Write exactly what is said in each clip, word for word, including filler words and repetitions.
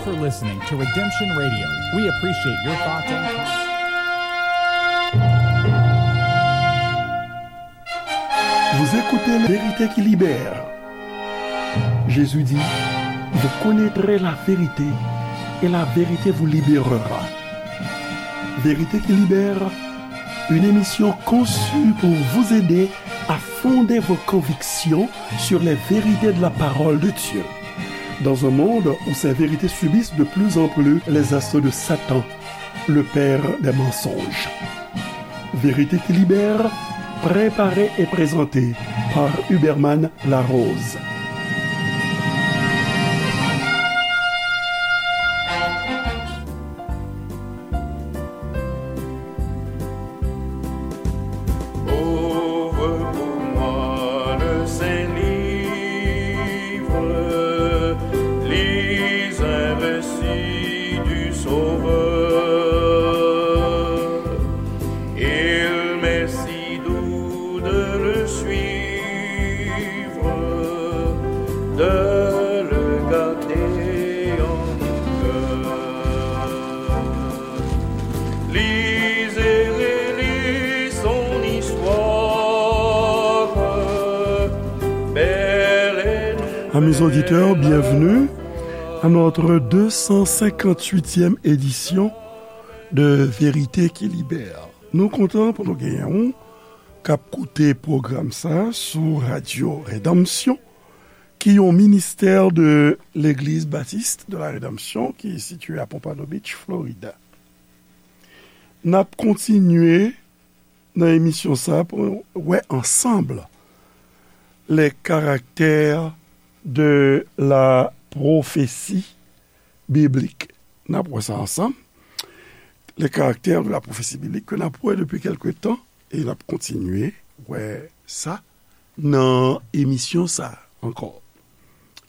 for listening to Redemption Radio. We appreciate your thoughts and comments. Vous écoutez La Vérité qui libère. Jésus dit, vous connaîtrez la vérité et la vérité vous libérera. Vérité qui libère, une émission conçue pour vous aider à fonder vos convictions sur les vérités de la parole de Dieu. Dans un monde où ces vérités subissent de plus en plus les assauts de Satan, le père des mensonges. Vérité qui libère, préparée et présentée par Huberman Larose. Ouvre pour moi le Saint Livre, lis un récit du Sauveur. Il m'est si doux de le suivre, de le garder en mon cœur. Lis et relis son histoire, belle et nouvelle. Amis auditeurs, bienvenue à notre deux cent cinquante-huitième édition de Vérité qui Libère. Nou kontan pou nou genyen w k ap koute pwogram sa sou Radyo Redanmsyon, ki yon ministè de Legliz Batis de la Redanmsyon ki sitiye a Pompano Beach, Florida. N ap kontinye nan emisyon sa pou wè ansanm les caractères de la prophétie biblique. N ap wè sa ansanm. Les caractères de la prophétie biblique ke n ap wè depi kèlke tan e n ap kontinye wè sa nan emisyon sa ankò.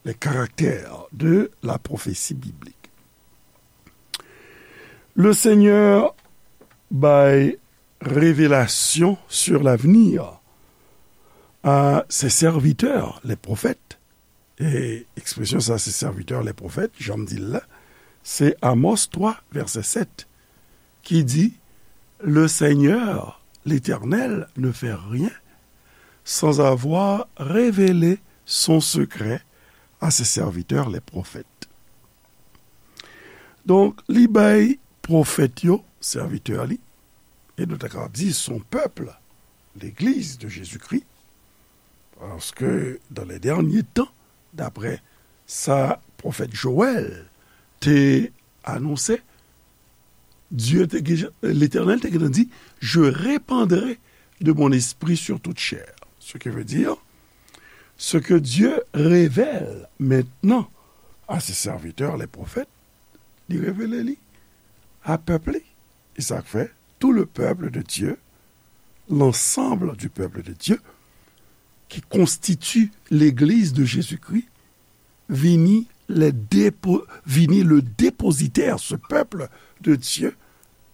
Les caractères de la prophétie biblique. Le Seigneur bay révélation sur l'avenir à ses serviteurs, les prophètes. E ekspresyon sa, ses serviteurs, les prophètes, jan m di l la, se Amos twa, vèsè sèt, ki di, le Seigneur, l'Éternel, ne fait rien sans avoir révélé son secret à ses serviteurs, les prophètes. Donk, li bay pwofèt yo, sèvitè li, e nou ta ka di son pèp, legliz de Jezikri, paske dans les derniers temps, daprè sa pwofèt Jowèl te anonse, Dye te gen, Letènèl te gentan di, je répandrai de mon esprit sur toute chair. Ce qui veut dire, ce que Dieu révèle maintenant à ses serviteurs, les prophètes, li revele li a pèp li. E sa k fè, tout le peuple de Dieu, l'ensemble du peuple de Dieu, qui constitue l'Église de Jésus-Christ, vini, les dépo-, vini le dépositaire, ce peuple de Dieu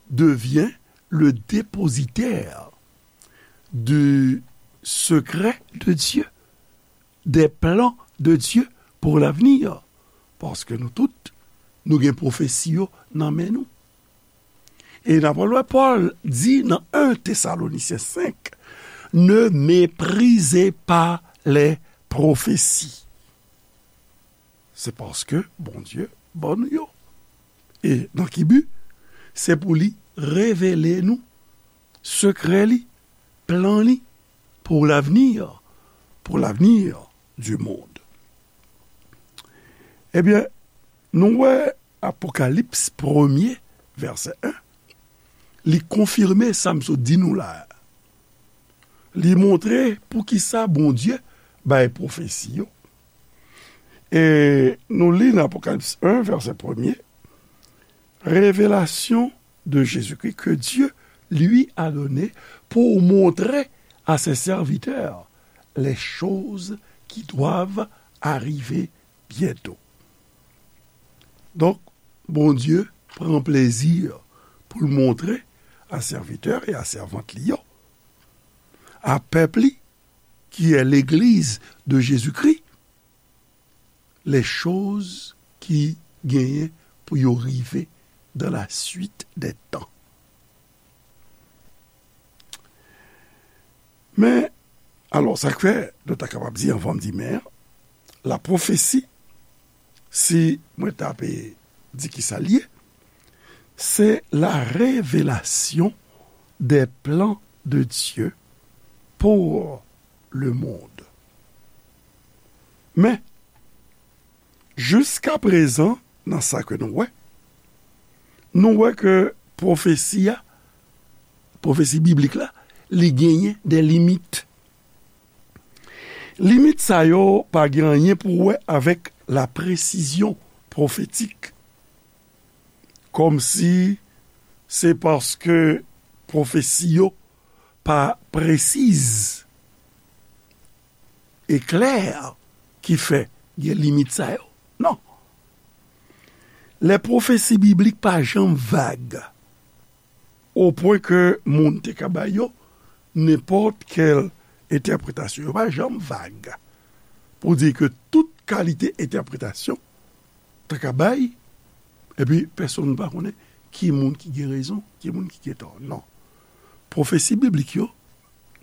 devient le dépositaire du secret de Dieu, des plans de Dieu pour l'avenir. Paske nou tout, nou gen pwofesi yo nan men nou. E n ap wè Pòl di nan en Thessaloniciens cinq, ne méprisez pas les prophéties. Se paske Bondye ban nou yo. E nan ki bi? Se pou li revele nou sekrè li, plan li pour l'avenir, pour l'avenir du monde. Ebyen, nou wè Apokalips premye, vèsè en, li konfime sa m sot di nou la a. Li montre poukisa Bondye bay pwofesi yo. E nou li nan Apokalips en, vèsè premye, révélation de Jésus-Christ que Dieu lui a donné pour montrer à ses serviteurs les choses qui doivent arriver bientôt. Donk, Bondye pran plezi pou l montre a sèvitè e a sèvant li yo, a pèp li, ki è legliz de Jezikri, les choses ki genyen pou yo rive dans la suite des temps. Men, alò, sa k fè, nou ta kapab di, anvan m di men, la pwofesi, si mwen ta pe di ki sa l ye, c'est la révélation des plans de Dieu pour le monde. Men, jiskaprezan, nan sa ke nou wè, nou wè ke pwofesi a, pwofesi biblik la, li genyen de limit. Limit sa yo pa gen anyen pou wè avèk la presizyon pwofetik. Kòmsi se paske pwofesi yo pa presiz e klè ki fè gen limit sa yo. Non. Lè pwofesi biblik pa janm vag, o pwen ke moun te ka bay yo nenpòt kèl entèpretasyon. Yo pa janm vag pou di ke tout kalite entèpretasyon ta ka bay, epi pèsonn pa konnen ki moun ki gen rezon, ki moun ki gen tò. Non. Pwofesi biblik yo,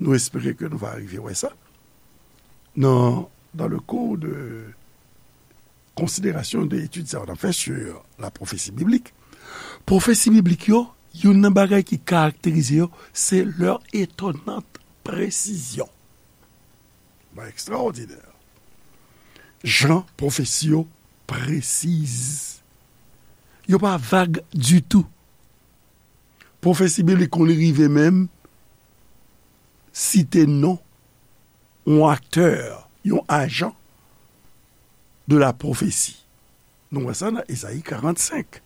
nou espere ke nou va rive wè sa nan, dans le cours de considération de etid sa yo n ap fè sur la prophétie biblique. Pwofesi biblik yo, youn nan bagay ki karakterize yo, se leur étonnante précision. Bagay ekstraòdinè. Jan pwofesi yo presiz. Yo pa vag ditou. Pwofesi biblik konn rive menm site non yon aktè, yon ajan de la pwofesi. Nou wè sa nan Ezayi karannsenk,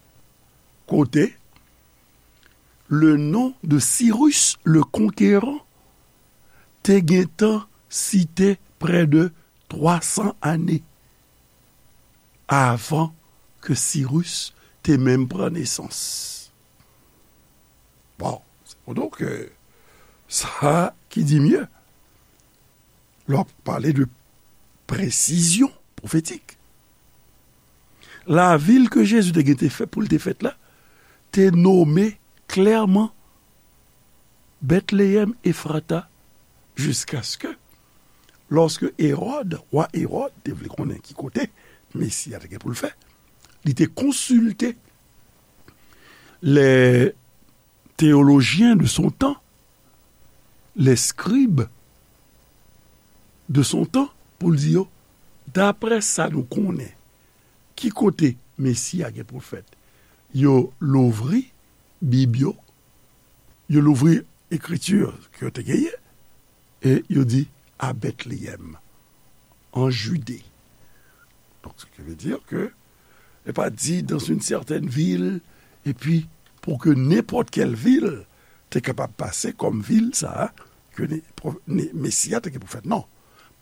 kote le nom de Cyrus le Conquérant te gentan site prè de twa san ane avan ke Sirus te menm pran nesans. Bon, se pou di w ke sa ki di mye, lè w ap pale de presizyon pwofetik. Lavil ke Jezi te gen te fè, pou l te fèt la, te nome klèman Bètleyèm Efrata, jiskaske lòske Ewòd, wa Ewòd, te vle konnen ki kote Mesi a te gen pou l fèt, li te konsilte les théologiens de son temps, les scribes de son temps, pou l di yo, daprè sa nou konnen, ki kote Mesi a gen pou l fèt? Yo louvri Bib yo, yo louvri ekriti ke yo te genyen, e yo di, à Bethléem, en Judée. Donc, ce qui veut dire que, e pa di dans une certaine ville, epi pou ke nenpòt kèl vil te kapab pase kòm vil sa a, ke ne, pro- ne, Mesi a te gen pou fèt. Non.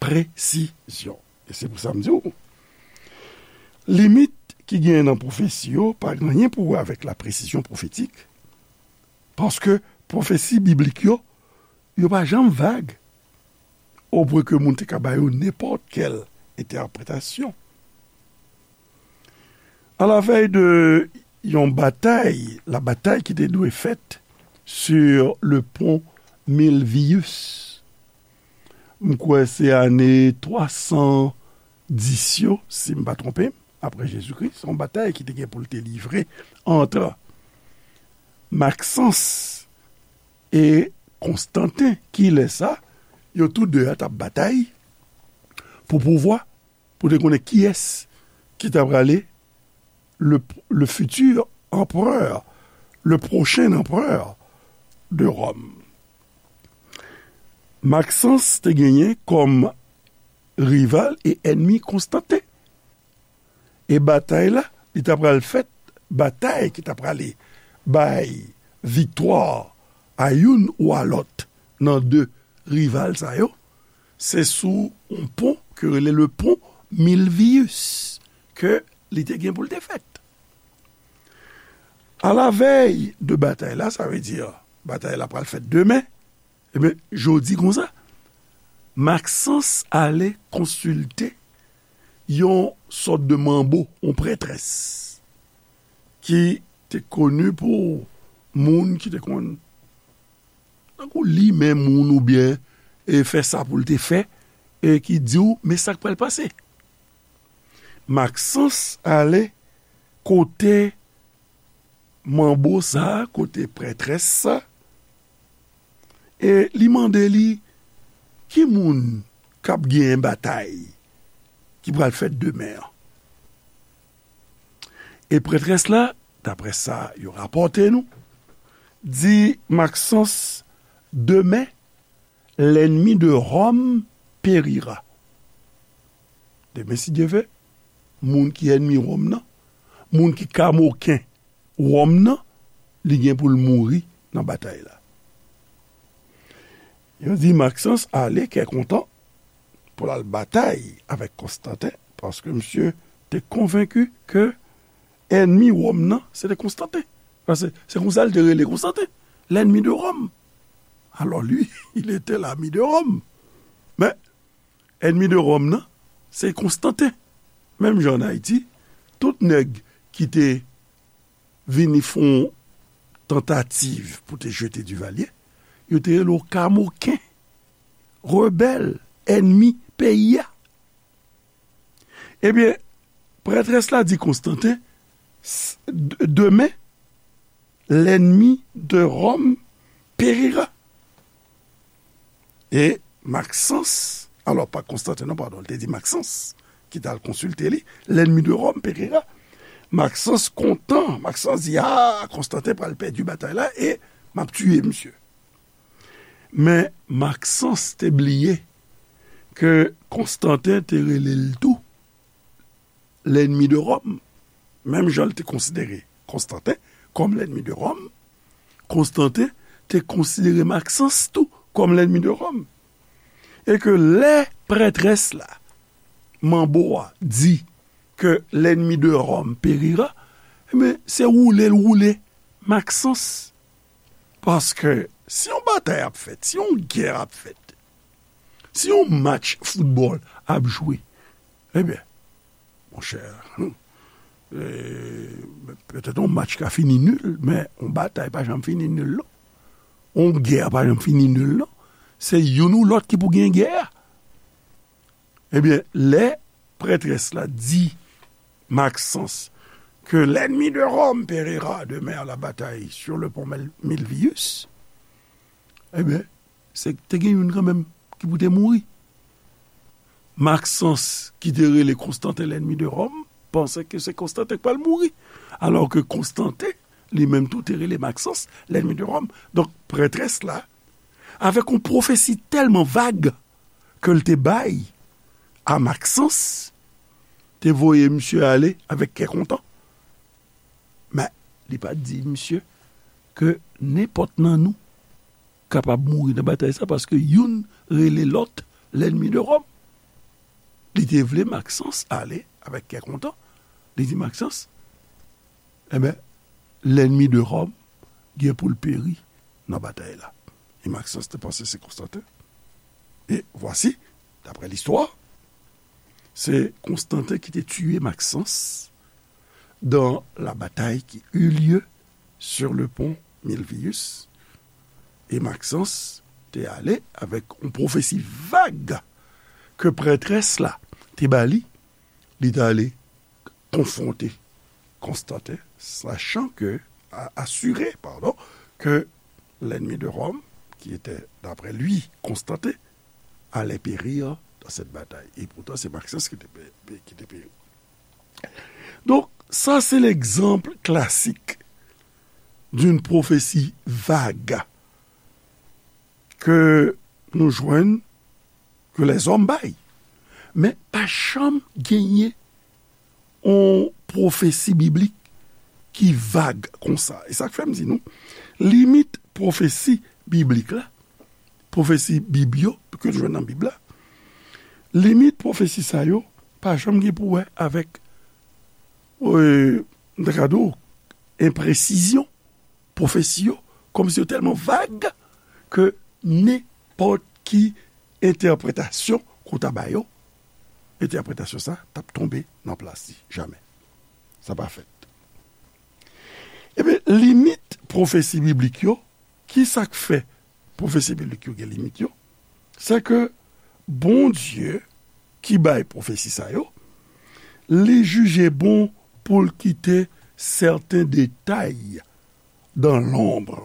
Presizyon. E se pou sa m di w, limit ki genyen nan pwofesi yo pa gen anyen pou wè avèk la presizyon pwofetik, paske pwofesi biblik yo, yo pa janm vag, o pwen ke moun te ka ba yo nenpòt kèl entèpretasyon. À la veille de yon batay, la batay ki te dwe fèt sur le pont Milvius. M kwè se ane twa san dis yo, si m pa twonpe m, apre Jezikri. Se yon batay ki te gen pou l te livre ant Maxence e Konstanten. Kilè sa? Yo tou de a t ap batay pou pouvwa, pou te konnen kiyès ki ta prale le, le futur empereur, le prochain empereur de Rome. Maxence te genyen kòm rival e ènmi Konstanten. E batay la, li ta pral fèt, batay ki ta prale bay viktwa a youn ou a lòt nan de rival sa yo, se sou yon pon ke rele le pon Milvius ke li te gen pou l te fèt. À la veille de batay la, sa vle di batay la pral fèt demen, ebyen, jodi konsa, Maxence ale konsilte yon sòt de manbo, yon prètrès, ki te koni pou moun ki te konn tankou limen moun oubyen e fè sa pou l te fè, e ki di w, men sa k pral pase. Maksans ale kote manbo sa a, kote prètrès sa, e li mande li, ki moun k ap genyen batay ki pral fèt demen an? E prètrès la, daprè sa yo rapòte nou, di Maksans, demen, l'ennemi de Rome périra. Demen, si Dye vle, moun ki ènmi Wòm nan, moun ki kamoken Wòm nan, li gen pou l mouri nan batay la. Yo di Maksans ale kè kontan pou l al batay avèk Konstanten, paske misye te konvenki ke ènmi Wòm nan, se te Konstanten. Paske se konsa l te rele Konstanten, l'ennemi de Rome. Alors lui, il était l'ami de Rome. Men, ènmi de Rome nan, se Konstanten. Menm jan ann Ayiti, tout nèg ki te vini fè yon tantativ pou te jete Divalye, yo te rele w kamoken, rebèl, ènmi peyi a. Ebyen, prètrès la di Konstanten, s-, d-, demen, l'ennemi de Rome périra. E Maksans, alò, pa Konstanten non, padon, li te di Maksans, ki t al konsilte li, l'ennemi de Rome périra. Maksans kontan, Maksans di, a, Konstanten pral pèdi batay la e m ap tiye misye. Men Maksans te bliye ke Konstanten te rele l tou l'ennemi de Rome. Menm jan l te konsidere Konstanten kòm l'ennemi de Rome, Konstanten te konsidere Maksans tou kòm l'ennemi de Rome. E ke lè prètrès la, manbo a, di ke l'ennemi de Rome périra, ebyen, se woule l woule Maksans. Paske si yon batay ap fèt, si yon gè ap fèt, si yon match foutbòl ap jwe, ebyen, monchè, e, petèt yon match ka fini nil, men yon batay pa janm fini nil, non. Yon gè pa janm fini nil, non. Se youn ou lòt ki pou gen gè a. Ebyen, lè prètrès la di Maksans ke l'ennemi de Rome périra demain à la bataille sur le pont Mel-, Milvius, ebyen, se te gen youn kanmenm ki pou te mouri. Maksans, ki te rele Konstanten l'ennemi de Rome, panse ke se Konstanten k pral mouri, alò ke Konstanten, li menm tou, te rele Maksans l'ennemi de Rome. Donk, prètrès la, avèk yon pwofesi tèlman vag ke l te bay a Maksans, te voye misye ale avèk kè kontan. Men, li pa t di misye ke nenpòt nan nou kapab mouri nan batay sa, paske youn rele lòt l'ennemi de Rome. Li te vle Maksans ale avèk kè kontan. Li di Maksans, ebyen, l'ennemi de Rome gen pou l peri nan batay la. E Maksans te panse se Konstanten. E vwasi, daprè listwa, se Konstanten ki te tiye Maksans dans la bataille qui eut lieu sur le pont Milvius. E Maksans te ale avèk yon pwofesi vag ke prètrès la te ba li, li t ale konfwonte Konstanten, sachant que, a-, assuré, pardon, que l'ennemi de Rome, qui était, d'après lui, Constantin, allait périr dans cette bataille. Et pourtant, c'est Maxence qui était pé-, pé-, qui était péri. Donk, sa se legzanp klasik d'une prophétie vague ke nou jwenn, ke lèzòm bay. Men pa janm genyen yon pwofesi biblik ki vag konsa. E sa k fè m di nou, limit pwofesi biblik la, pwofesi Bib yo, ke nou jwenn nan Bib la, limit pwofesi sa yo pa janm gen pou wè avèk, e, m ta ka di w, enpresizyon pwofesi yo, kòmsi yo tèlman vag ke nenpòt ki entèpretasyon ke w ta ba yo, entèpretasyon sa t ap tonbe nan plas li, jamè. Sa pa fèt. Limit pwofesi biblik yo, ki sa k fè pwofesi biblik yo gen limit yo? Se ke Bondye ki bay pwofesi sa yo, li jije bon pou l kite sèten detay dans l'ombre.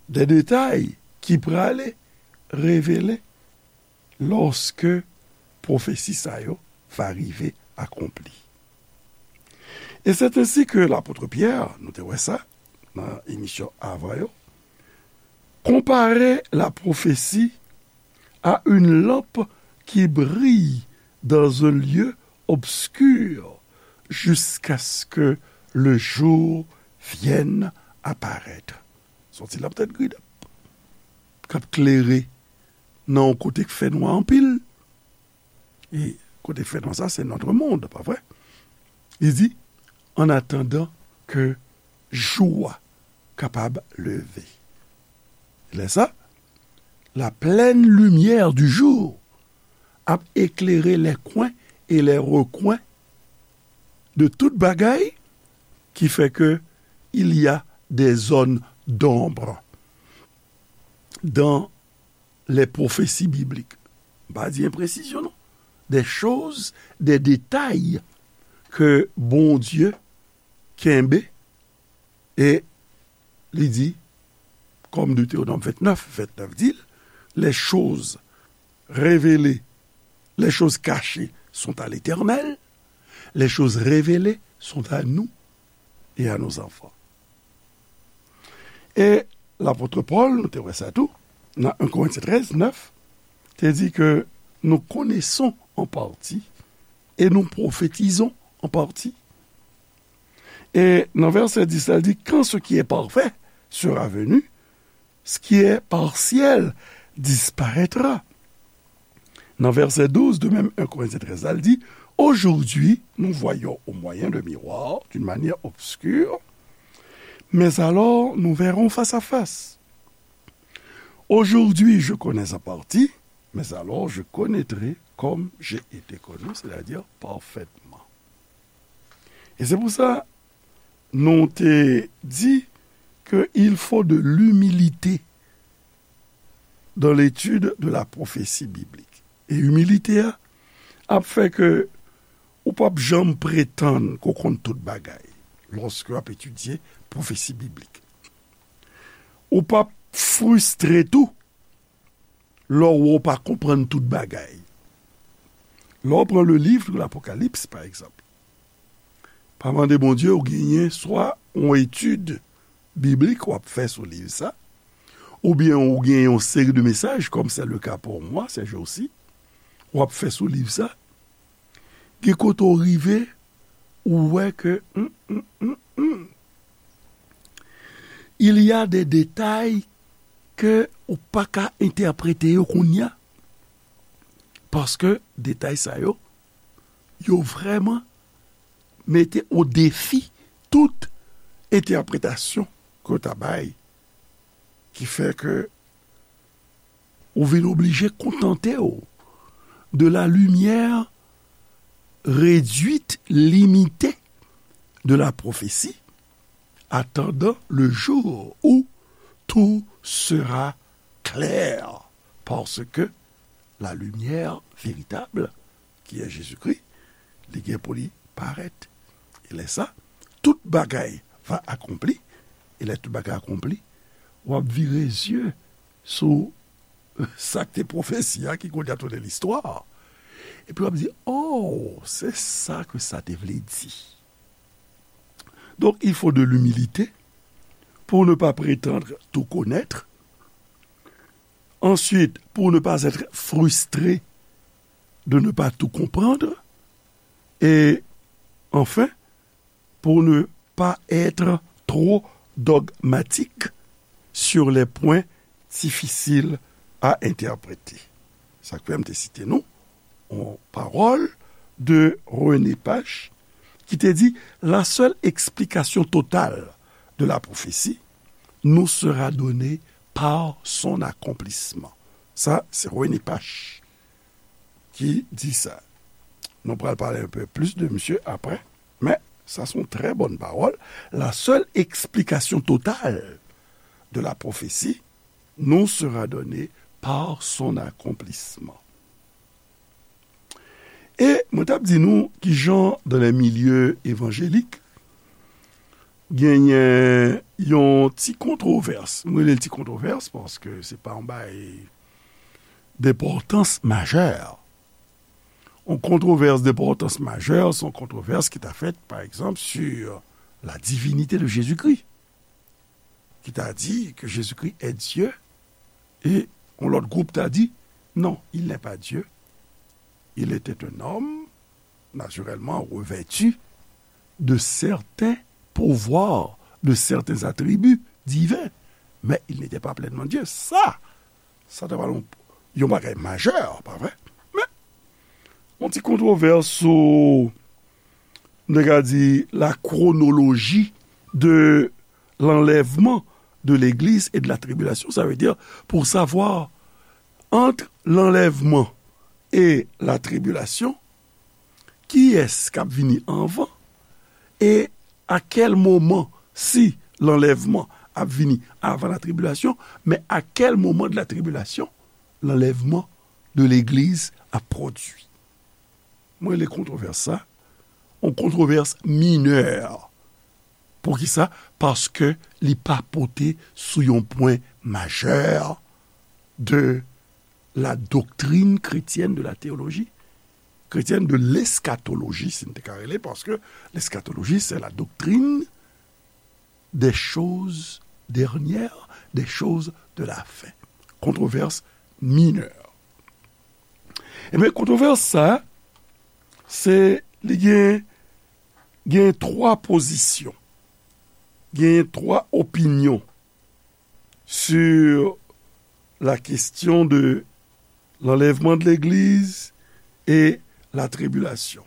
De detay ki prale revele lòske pwofesi sa yo va rive akonpli. E se ensi ke lapot Pyè, nou te wè sa nan emisyon avan yo, konpare la prophétie à une lampe qui brille dans un lieu obscur jusqu'à ce que le jour vienne apparaître. Se yon ti lanp tèt grid k ap klere nan yon kote k fè nwa anpil. E kote k fè nwa sa, se notre monde, pa vre? Li di, en attendant que jou a kapab leve. Lè sa, la pleine lumière du jour ap éclairer les coins et les recoins de tout bagay, ki fè ke il y a des zones d'ombre dans les prophéties bibliques. M pa di enpresizyon, non. Des choses, des détails ke Bondye kenbe, e li di, comme Deutéronome vingt-neuf, vingt-neuf di l, les choses révélées, les choses cachées sont à l'Éternel, les choses révélées sont à nous et à nos enfants. E lapot Pòl, nou te wè sa tou, nan un Corinthiens treize, neuf, te di ke nous connaissons en partie et nous prophétisons en partie. E nan vèsè dis la, li di, quand ce qui est parfait sera venu, ce qui est partiel disparaîtra. Nan vèsè douz de menm un Corinthiens treize la, li di, aujourd'hui, nous voyons au moyen de miroirs, d'une manière obscure, mais alors nous verrons face à face. Aujourd'hui, je connais en partie, mais alors je connaîtrai comme j'ai été connu, c'est-à-dire parfaitement. E se pou sa, nou te di ke il faut de l'humilité dans l'étude de la prophétie biblique. E imilite a ap fè ke ou p ap janm pretann ke w konn tout bagay lòske w ap etidye pwofesi biblik. Ou p ap fristre tou lè w wè w pa konprann tout bagay. Lè w pran le livre de l'Apocalypse, pa egzanp, pa mande Bondye ou genyen swa yon etid biblik w ap fè sou liv sa, oubyen ou gen yon seri de mesaj, comme c'est le cas pour moi ces jours-ci, w ap fè sou liv sa, gen kote w rive, ou wè ke, hmm, hmm, hmm, hmm, il y a des détails ke ou pa ka entèprete yo kounye a, paske detay sa yo, yo vrèman mete o defi tout entèpretasyon ke w ta bay, ki fè ke ou vin oblije kontante w de la lumière réduite, limitée de la prophétie, attendant le jour où tout sera clair, parce que la lumière véritable, qui est Jésus-Christ, li gen pou li parèt. E lè sa, tout bagay va akonpli. E lè tout bagay akonpli, w ap vire zye sou sa k te pwofesi a, ki kounye a tounen listwa. Epi w ap di, oh, se sa ke sa te vle di. Donc, il faut de l'humilité pour ne pas prétendre tout connaître. Ensuite, pour ne pas être frustré de ne pas tout comprendre. Et enfin, pour ne pas être trop dogmatique sur les points difficiles à interpréter. Sa k fè m te site nou yon pawòl de René Pache ki te di, la seule explication totale de la prophétie nous sera donnée par son accomplissement. Sa, se René Pache ki di sa. Nou pral pale un peu plus de misye apre, men Ça, c'est une très bonne parole. La seule explication totale de la prophétie nous sera donnée par son accomplissement. E mwen t ap di nou kijan dans les milieux évangéliques genyen yon ti kontwovès. Mwen rele l ti kontwovès paske se pa yon bagay d'importance majeure. Yon kontwovès d'importance majeure, se yon kontwovès ki ta fèt, par exemple, sur la divinité de Jésus-Christ, ki ta di ke Jezikri est Dieu, e yon lòt gwoup ta di, non, il n'est pas Dieu. Il était un homme, naturellement revêtu de certains pouvoirs, de certains attributs divins, mais il n'était pas pleinement Dieu. Sa, sa te pral yon, yon bagay majè, pa vre? Men, yon ti kontwovès sou, nou ka di, la chronologie de l'enlèvement de l'Église et de la tribulation. Ça veut dire, pour savoir, entre l'enlèvement et la tribulation, kiyès k ap vini anvan, e a kèl moman, si l'enlèvement ap vini avan la tribulation, men a kèl moman de la tribulation l'enlèvement de l'Église ap pwodui. Mwen rele kontwovès sa yon kontwovès minè. Poukisa? Paske li pa pote sou yon pwen majè de la doctrine chrétienne de la théologie, chrétienne de l'eschatologie, si n te ka rele, paske l'eschatologie, c'est la doctrine des choses dernières, des choses de la fin. Kontwovès minè. Ebyen, kontwovès sa, se, li gen, gen twa pozisyon, gen twa opinyon sur la question de l'enlèvement de l'Église et la tribulation.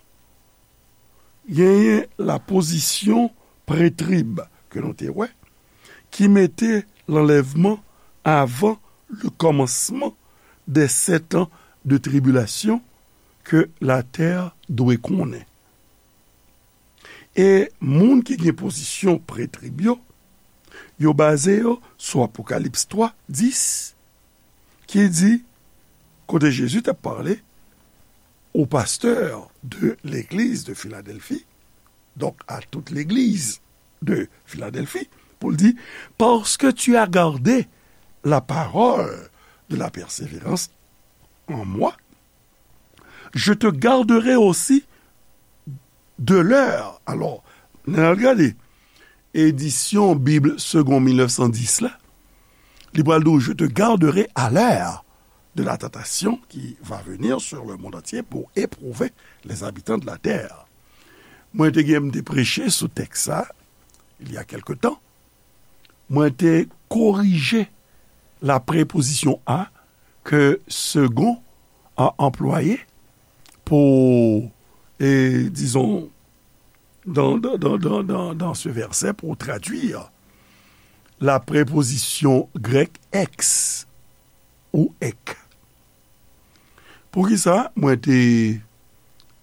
Genyen la pozisyon prètrib ke nou te wè, ki mete l'enlèvement avant le commencement des sept ans de tribulation que la terre dwe konnen. E moun ki gen pozisyon prètrib yo, yo baze yo sou Apokalips twa, dis, ki di, kote Jezi t ap pale aux pasteurs de l'église de Philadelphie, donc à toute l'église de Philadelphie, pou l di, parce que tu as gardé la parole de la persévérance en moi, je te garderai aussi de l'heure. Alò, n al gade edisyon Bib Segond mil nèf san dis la, li pral di w, je te garderai à l'heure de la tentation qui va venir sur le monde entier pour éprouver les habitants de la terre. Mwen te gen m te preche sou tèks sa, il y a quelque temps. Mwen te korije la prepozisyon a ke Segond a anplwaye pou, e, dizon, dans, dans, dans, dans, dans, dans ce verset pour traduire la préposition grecque ex ou ek. Poukisa mwen te,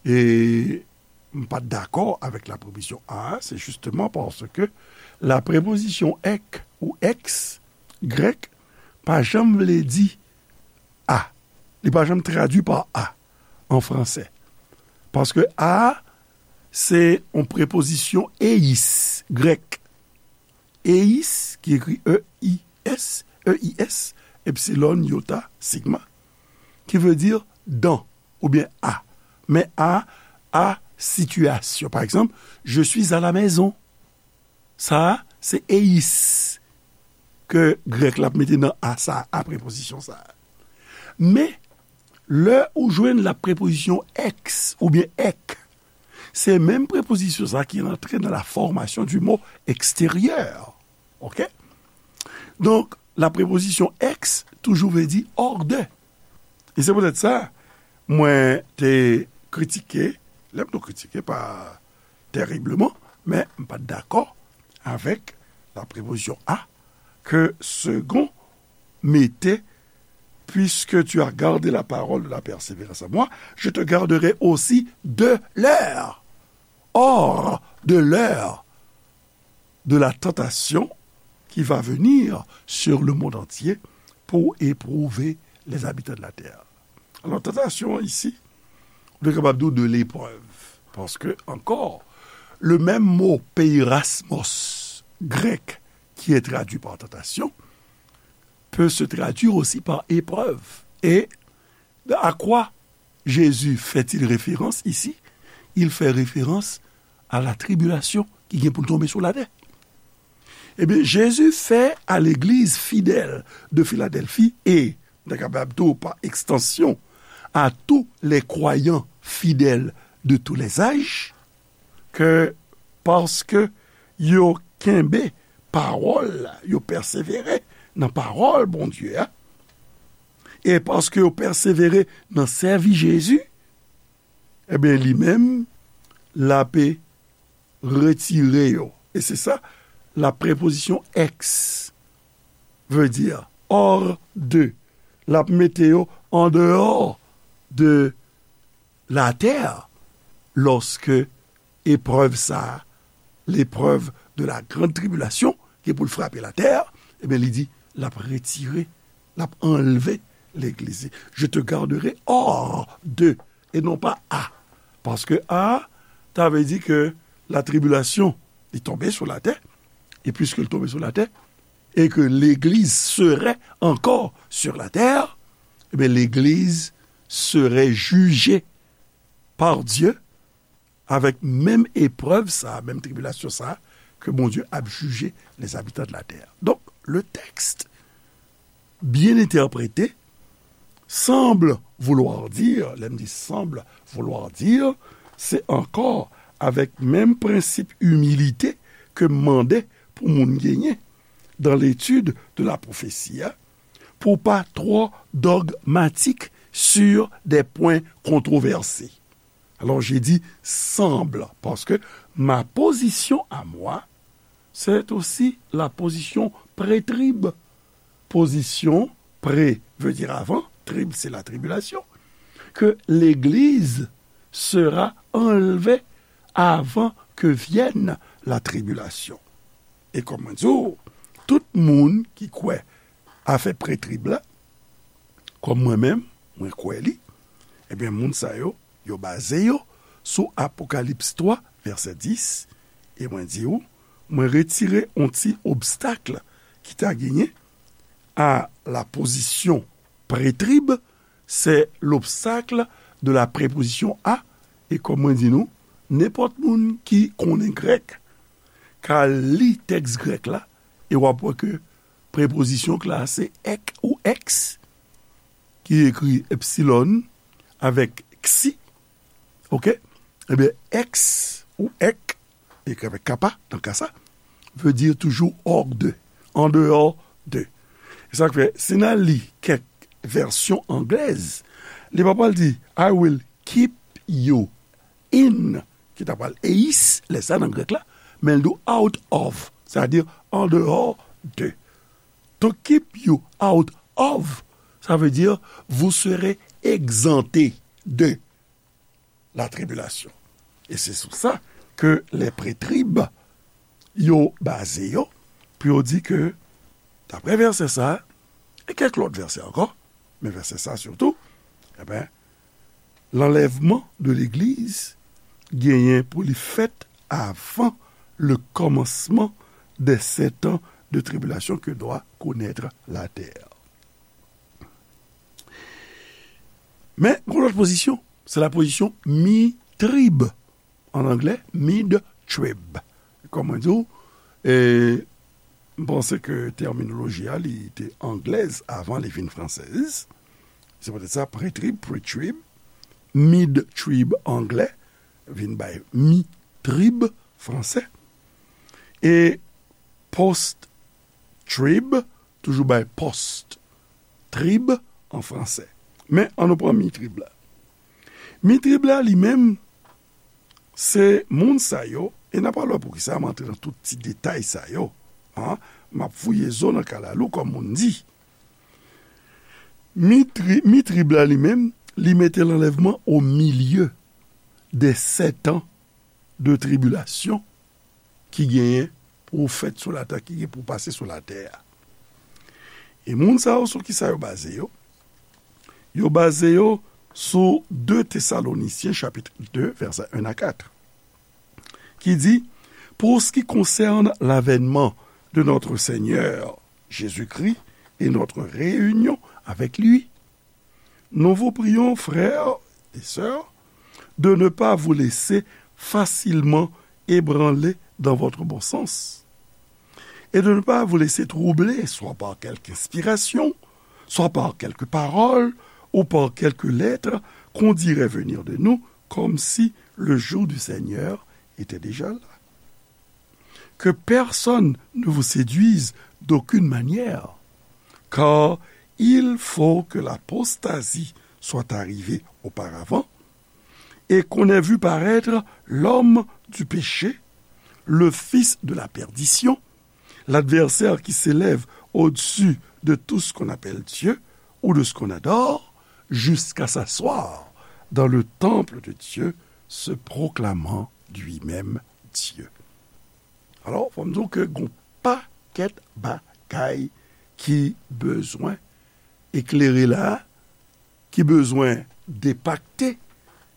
e, m pa t dakò avèk la prepozisyon a, se jisteman paske la prepozisyon ek ou ex grèk pa janm vle di a. Li pa janm tradui pa a an fransè. Paske a, se yon prepozisyon eis grèk. Eis, ki ekri E I S, E I S, epsilon, iota, sigma, ki vle di dan oubyen a. Men a, a sitiyasyon. Pa egzanp, je suis à la maison. Sa a, se eis ke grèk la ap mete nan a sa a, a prepozisyon sa a. Men, lè ou jwenn la prepozisyon ex oubyen ek, se menm prepozisyon sa ki rantre nan la formation du mot extérieur. Oke? Donk, la prepozisyon ex toujou vle di hors de. E se poutèt sa, mwen te kritike, lè m te kritike pa tèribleman, men m pa t dakò avèk la prepozisyon a ke Segond mete, puisque tu as gardé la parole de la persévérance en moi, je te garderai aussi de l'heure. Or, de l'heure de la tentation qui va venir sur le monde entier pour éprouver les habitants de la terre. Alò, tantasyon isi, nou kapab di de l'épreuve. Paske, ankò, le menm mo peirasmos grèk ki est traduit par tentation peut se traduire aussi par épreuve. Et à quoi Jésus fait-il référence ici? Il fait référence à la tribulation ki gen pou l tonbe sou latè. Ebyen, Jezi fè a legliz fidèl de Filadèlfi e, nou ta kapab di w, pa ekstansyon, à tous les croyants fidèles de tous les âges, ke paske yo kenbe pawòl la, yo pèsevere nan pawòl Bondye a, e paske yo pèsevere nan sèvi Jezi, ebyen, li menm, l ape retire yo. E se sa, la prepozisyon ex veut dire hors de. L ap mete yo an deyò de la terre, lorsque épreuve sa, l'épreuve de la grande tribulation, ki pou l frape la terre, ebyen, li di, l ap retire, l ap anlve legliz. Je te garderai hors de, et non pas à. Paske à, ta vle di ke la tribulation, li tonbe sou la terre, et puisque l tonbe sou la terre, et que l'église serait encore sur la terre, eh bien, l'église serait jugée par Dieu avec menm eprèv sa, menm tribilasyon sa, ke Bondye ap jije les habitants de la terre. Donk, le texte, bien interprété, semble vouloir dire, lè m di semble vouloir dire, se ankò avèk menm prensip imilite ke m mande pou moun genyen dans l'étude de la prophétie, pou pa twò dogmatik sur des points controversés. Alors, j'ai dit semble, parce que ma position à moi, c'est aussi la position pré-trib. Position pré veut dire avant, trib, c'est la tribulation, que l'Église sera enlevée avant que vienne la tribulation. E kòm mwen di w, tout moun ki kwè afè pré-trib la, kòm mwen menm, mwen kwè li, ebyen, moun sa yo, yo baze yo sou Apokalips twa, vèsè dis, e mwen di w, mwen retire yon ti obstak ki ta genyen à la position pré-trib, c'est l'obstacle de la préposition à, e kòm mwen di nou, nenpòt moun ki konnen grèk ka li tèks grèk la, e w ap wè ke prepozisyon k la se ek ou eks, ki ekri epsilon avèk ksi, oke? Ebyen, eks ou ek, ekri avèk kappa, nan ka sa, veut dire toujours hors de, en dehors de. E sa k fè, si n al li kèk vèsyon anglèz, li pa pral di, "I will keep you in," ki ta pral eis, lè sa nan grèk la, men l di out of, sètadi en dehors de. To keep you out of, ça veut dire vous serez exempté de la tribulation. E se sou sa ke lè pré-trib yo baze yo, pou yo di ke, daprè vèsè sa, e kèk lòt vèsè ankò, men vèsè sa sitou, ebyen, l'enlèvement de l'Église genyen pou li fèt avant le commencement des sept ans de tribulation que doit connaître la terre. Men, gon lòt pozisyon, se la pozisyon mi-trib. An anglè, mid-trib. Kòm mwen di w, e, m panse ke tèminoloji a, li te anglèz avan li vin fransèz. Se poutèt sa, pre-trib, pre-trib, mid-trib anglè, vin bay mi-trib fransè. E post-trib, toujou bay post-trib an fransè. Men, ann nou pran mi-trib la. Mi-trib la, li menm, se moun sa yo, e n a pral wè poukisa m antre nan tout ti detay sa yo. An, m ap fouye zo nan kalalou, kòm moun di. Mi-tri-, mi-trib la, li menm, li mete l'enlèvement au milieu des sept ans de tribulation ki genyen pou fèt sou latè, ki gen pou pase sou latè a. E moun sa yo, sou ki sa yo baze yo? Yo baze yo sou de Tesalonisyen, chapit de, vèsè en a kat, ki di, pour ce qui concerne l'avènement de notre Seigneur Jésus-Christ et notre réunion avec lui, nous vous prions, frères et sœurs, de ne pas vous laisser facilement ébranler dans votre bon sens, et de ne pas vous laisser troubler, soit par quelque inspiration, soit par quelques paroles, ou par quelques lettres qu'on dirait venir de nous, comme si le jour du Seigneur était déjà là. Que personne ne vous séduise d'aucune manière, car il faut que l'apostasie soit arrivée auparavant, et qu'on ait vu paraître l'homme du péché, le fils de la perdition, l'adversaire qui s'élève au-dessus de tout ce qu'on appelle Dieu ou de ce qu'on adore, jusqu'à s'asseoir dans le temple de Dieu, se proclamant lui-même Dieu. Alò, fò m di w ke gon pakèt bagay ki bezwen eklere la, ki bezwen depakte,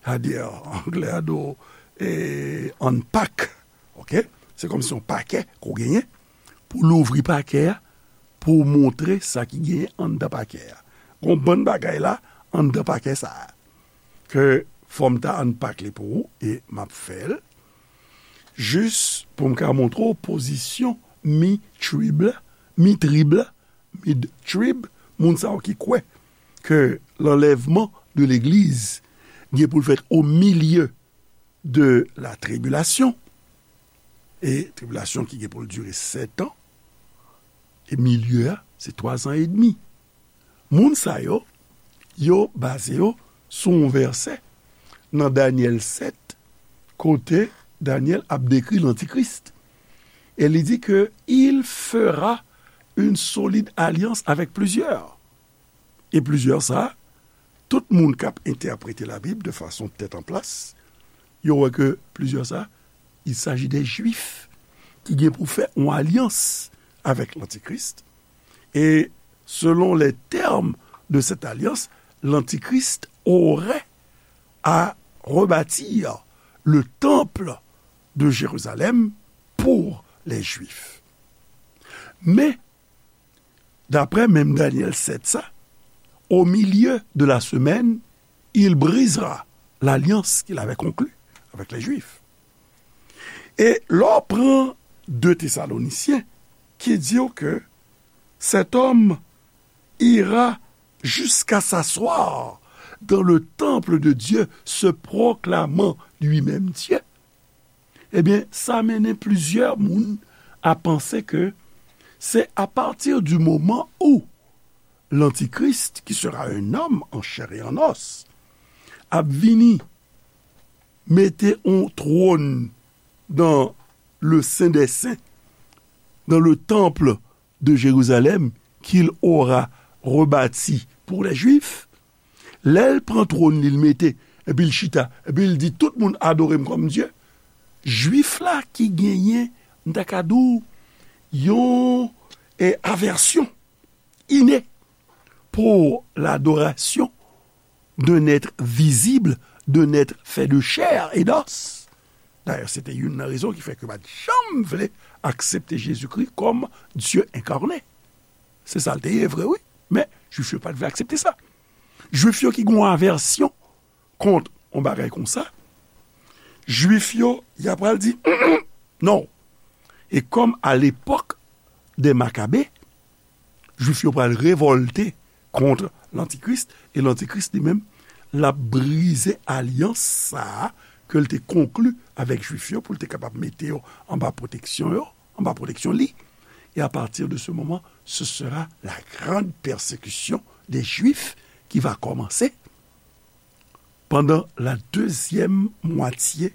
sètadi, anglè a di w, e, unpack, oke? Se kòmsi yon pakè ke w genyen, pou w louvri pakè a, pou w montre sa ki genyen anndan pakè a. Gon bann bagay la, anndan pakè sa a, ke fò m ta unpack li pou ou, e m ap fè l, jis pou m ka montre w pozisyon mi-trib la, mi-trib la, mid-trib, moun sa yo ki kwè ke lanlèvman de legliz gen pou l fèt o milye de la tribilasyon, e tribilasyon ki gen pou l dire sèt an, e milye a, se twa zan edmi. Moun sa yo, yo baze yo sou yon vèsè nan Danyèl sèt, kote Danyèl ap dekri lantikris. E li di ke il fera une solide alliance avec plusieurs. E plizyè sa, tout moun k ap entèprete Labib de fason tèt an plas, yo wè ke plizyè sa, il s'agit des Juifs ki gen pou fè yon alyans avèk lantikris. Et selon les termes de cette alliance, l'antichrist aurait à rebâtir le temple de Jérusalem pour les Juifs. Mais, d'après même Daniel sept ça, au milieu de la semaine, il brisera l'alliance qu'il avait conclue avec les Juifs. E lè w pran de Tesalonisyen, ki di w ke cet homme ira jusqu'à s'asseoir dans le temple de Dieu, se proclamant lui-même Dieu, ebyen, sa mennen plizyè moun a panse ke se à partir du moment où l'Antichrist, qui sera un homme en chair et en os, ap vini mete yon twòn dans le Saint des Saints, dans le temple de Jérusalem, qu'il aura rebâti pour les Juifs. Lè l pran twòn li, l mete, epi l chita, epi l di, tout moun adore m kòm Dye. Jwif la ki genyen, m ta ka di w, yon, eh, avèsyon inè pour l'adoration d'un être visible, d'un être fait de chair et d'os. Dayè, se te youn nan rezon ki fè ke yo pa t janm vle aksepte Jezikri kòm Dye enkarne. Se sa l te ye vre, wi. Men, Jwif yo pa t vle aksepte sa. Jwif yo ki gen yon avèsyon kont yon bagay konsa, Jwif yo, y ap pral di, non. E kòm a lepòk de Makabe, Jwif yo pral revòlte kont Lantikris, e Lantikris li menm, l ap brize alyans sa a ke l te konkli avèk Jwif yo pou l te kapab mete yo anba pwoteksyon yo, anba pwoteksyon li. Et à partir de ce moment, ce sera la grande persécution des Juifs qui va commencer pendant la deuxième moitié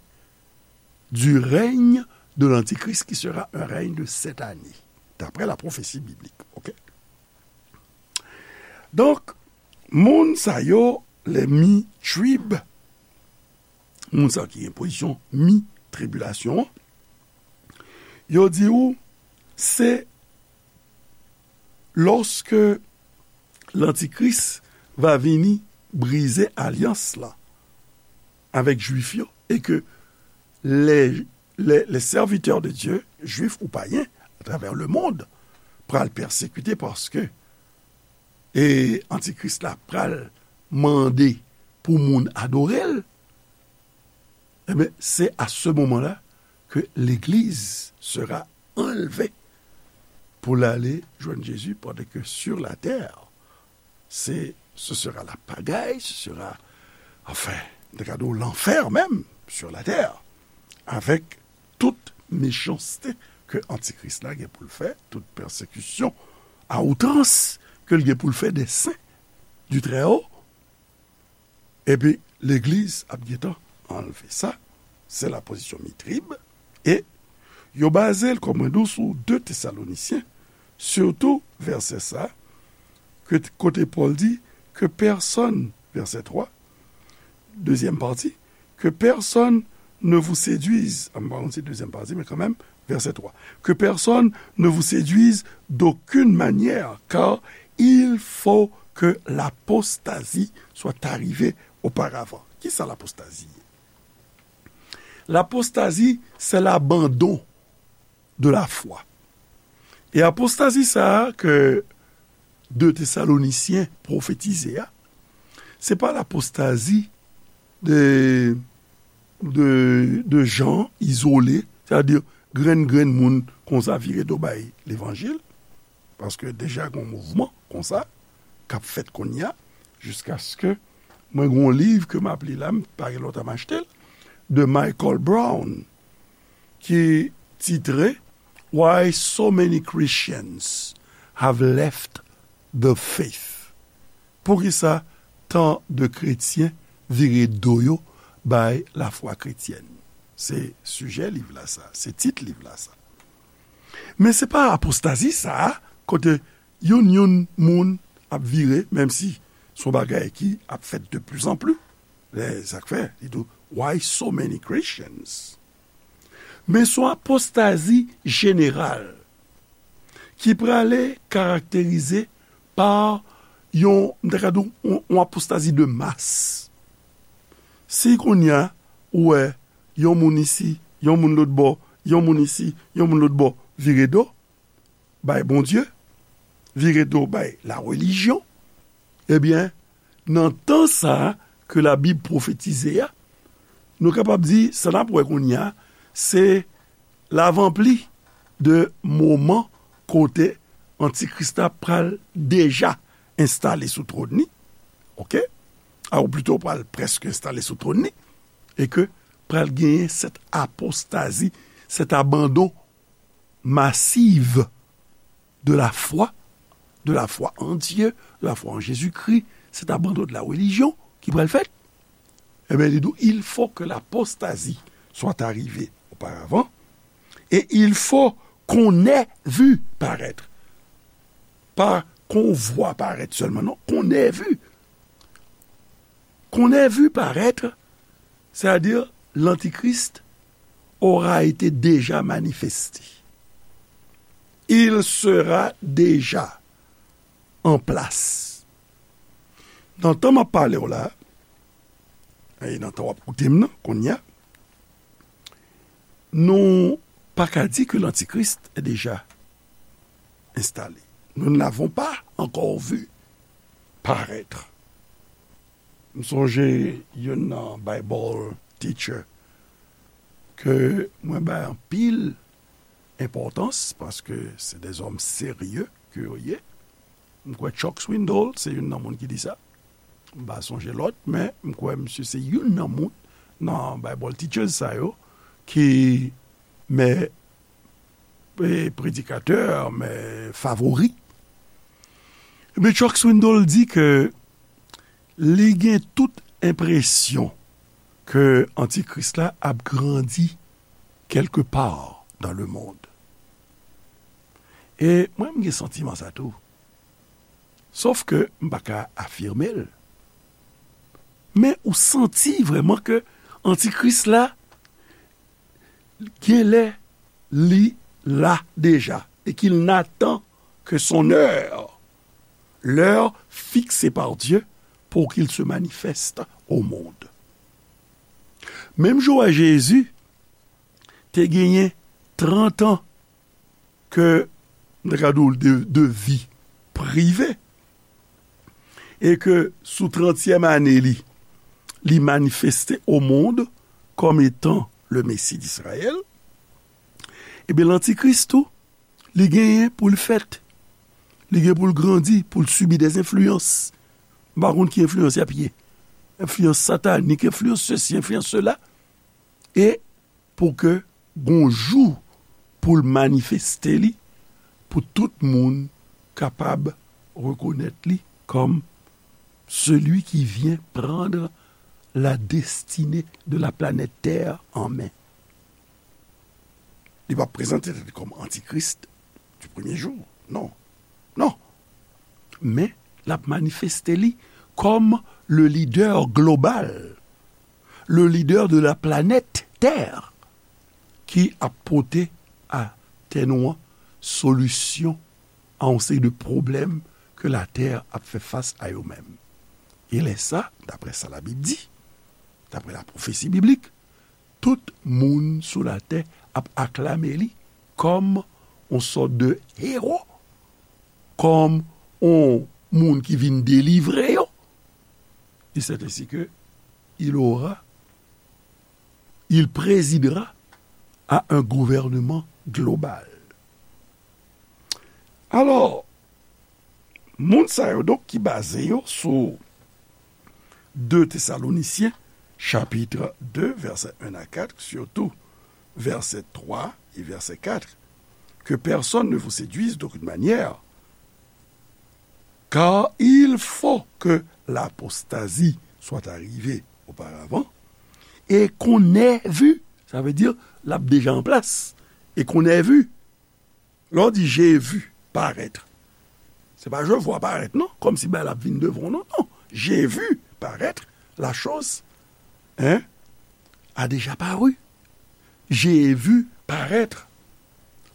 du règne de l'Antichrist, qui sera un règne de sept années, d'après la prophétie biblique. Ok? Donk, moun sa yo, les mi-trib, moun sa yo ki gen pozisyon mi-tribilasyon an, Yo di ou, se lòske Lantikris va vini brize alyans la avèk Jwif yo, e ke les, les, les serviteurs de Dieu, Jwif ou payen, atravè lemonn, pral pèsekite paske, e, Antikris la pral mande pou moun adore l, ebyen, se a se moman la ke legliz sera anlve pou l ale jwenn Jezi, pandan ke sur la terre, c'est, ce sera la pagaille, ce sera, enfin, te ka di w lanfè menm sur la terre, avèk tout mechanste ke Antikris la gen pou l fè, tout pèsekisyon a outrans ke l gen pou l fè des saints du Très-Haut. Epi, legliz ap gentan anlve sa. Se la pozisyon Mitrib. E yo baze l, kòm mwen di w, sou de Tesalonisyen, sitou vèsè sa, ke, kote Pòl di, ke pèsonn, vèsè twa, dezyèm pati, que personne ne vous séduise, ah, m pa konn si dezyèm pati, men kanmenm, vèsè twa, que personne ne vous séduise d'aucune manière, car il faut que l'apostasie soit arrivée auparavant. Kisa lapostazi ye? Lapostazi, se labandon de la foi. E apostazi sa a ke de Tesalonisyen pwofetize a, se pa lapostazi de, de, de jan izole, sètadi grenn, grenn moun konsa vire do bay levanjil, paske deja gen yon mouvman konsa k ap fèt kounye a, jiskaske mwen gen yon liv ke m ap li la, m pa gen lontan m achte l, de Michael Brown, ki titre Why So Many Christians Have Left the Faith. Poukisa tan de kretyen vire do yo bay lafwa kretyèn? Se sijè liv la sa, se tit liv la sa. Men se pa apostazi sa a, kote youn youn moun ap vire, menm si se yon bagay ki ap fèt de plus en plus. Lè sa k fè, li di w, why so many Christians? Men se yon apostazi jeneral ki prale karakterize pa yon, m ta ka di w, yon, yon apostazi de mas. Si kounye a, ou wè, yon moun isi, yon moun lòt bò, yon moun isi, yon moun lòt bò, vire do bay Bondye, vire do bay larelijyon, ebyen, nan tan sa a ke Labib pwofetize a, nou kapab di, sa n ap wè kounye a, se lavanpli de moman kote Antikris la pral deja enstale sou twòn li, oke? A, ou plito pral prèske enstale sou twòn li, e ke pral genyen sèt apostazi, sèt abandon masiv de la foi, de la foi en Dieu, de la foi en Jésus-Christ, cet abandon de la religion ki pral fèt. Ebyen, li di w, il faut que l'apostasie soit arrivée auparavant, et il faut qu'on ait vu paraître. Pa qu'on voit paraître seulement, non, qu'on ait vu. Qu'on ait vu paraître, c'est-à-dire l'Antichrist aura été déjà manifesté. Il sera déjà en place. Nan tan m ap pale w la, e nan tan w ap koute m nan, kounye a, nou pa ka di ke l'Antichrist est déjà installé. Nous ne l'avons pas encore vu paraître. M sonje youn nan Bible teacher ke mwen bay anpil enpòtans, paske se de zòm serye ke yo ye. M kwè Chuck Swindoll se youn nan moun ki di sa. M pa sonje lòt, men m kwè misye se youn nan moun nan Bible teachers sa yo ki mè, e, predikatè, mè favori. Men Chuck Swindoll di ke li gen tout enpresyon ke Antikris la ap grandi quelque part dans le monde. E mwen, m gen santiman sa tou. Sòf ke m pa ka afime l. Men ou santi vrèman ke Antikris la, genlè, li là déjà et qu'il n'attend que son heure, l'heure fixée par Dieu pour qu'il se manifeste au monde. Menm jan Jezi te genyen trant an ke, m ta ka di w, de, de vi prive, e ke sou trantyèm ane li, li manifeste au monde comme étant le Messie d'Israël, ebyen, lantikris tou, li genyen pou l fèt. Li gen pou l grandi, pou l sibi des influences. M pa konn ki enfliyans y ap ye. Enfliyans satanik, enfliyans sesi, enfliyans sela. E pou ke gon jou pou l manifeste li, pou tout moun kapab rekonèt li kòm celui qui vient prendre la destinée de la planète Terre en main. Li p ap prezante tèt li kòm antikris du premier jour. Non. Non. Men, l ap manifeste li kòm le leader global, le leader de la planète Terre, ki ap pote a tè nou an solisyon a yon seri de pwoblèm ke latè ap fè fas a yo menm. E lè sa, daprè sa Labib di, daprè la pwofesi biblik, tout moun sou latè ap aklame li kòm yon sòt de ewo, kòm yon moun ki vin delivre yo. Et c'est ainsi que il aura, il présidera à un gouvernement global. Alò, moun sa yo donk ki baze yo sou de Tesalonisyen, chapit de, vèsè en a kat, sitou vèsè twa e vèsè kat, que personne ne vous séduise d'aucune manière, car il faut que l'apostasie soit arrivée auparavant, et qu'on ait vu, sa vle di, l ap deja an plas, et qu'on ait vu. Lè w di j'ai vu paraître, se pa je vois paraître, non, kòmsi bagay la ap vin devan w, non, non. J'ai vu paraître la chose, hein, a déjà paru. J'ai vu paraître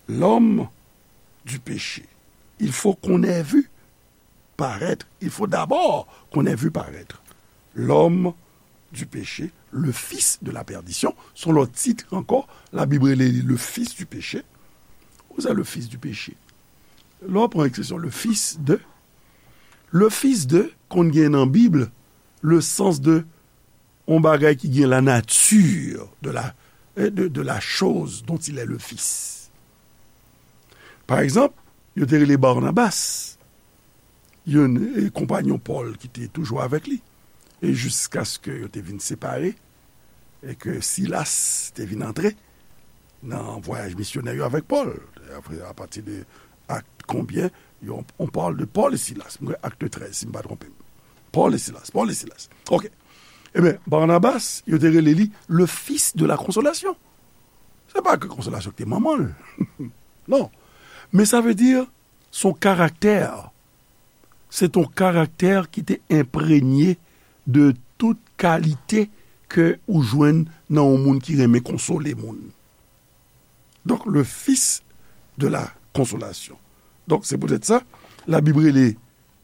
l'homme du péché. Il faut qu'on ait vu paraître, il faut d'abord qu'on ait vu paraître l'homme du péché, le fils de la perdition. Se yon lòt tit ankò, Labib rele li le fils du péché. Ou sa, le fils du péché? Lè w pran ekspresyon le fils de, le fils de konn gen nan Bib le sans de yon bagay ki gen la nature de la, eh, de, de la chose dont il est le fils. Pa egzanp, yo te rele Barnabas, yon, eh, konpanyon Pòl ki te toujou avèk li, e jiskaske yo te vin separe, e ke Silas te vin antre nan vwayaj misyonè yo avèk Pòl. Apre, apati de Akt konbyen? Yo, on parle de Paul et Silas. Mwen kwè Akt trèz, si m pa twonpe m. Paul et Silas, Paul et Silas. Ok. Ebyen, Barnabas, yo te rele li le fils de la consolation. Se pa ke konsolasyon ki te manman l. Non. Men sa vle di, se yon karaktè. Se yon karaktè ki te enprenye de tout kalite ke ou jwenn nan yon moun ki renmen konsole moun. Donk, le fils de la consolation. Donk, se poutèt sa, Labib rele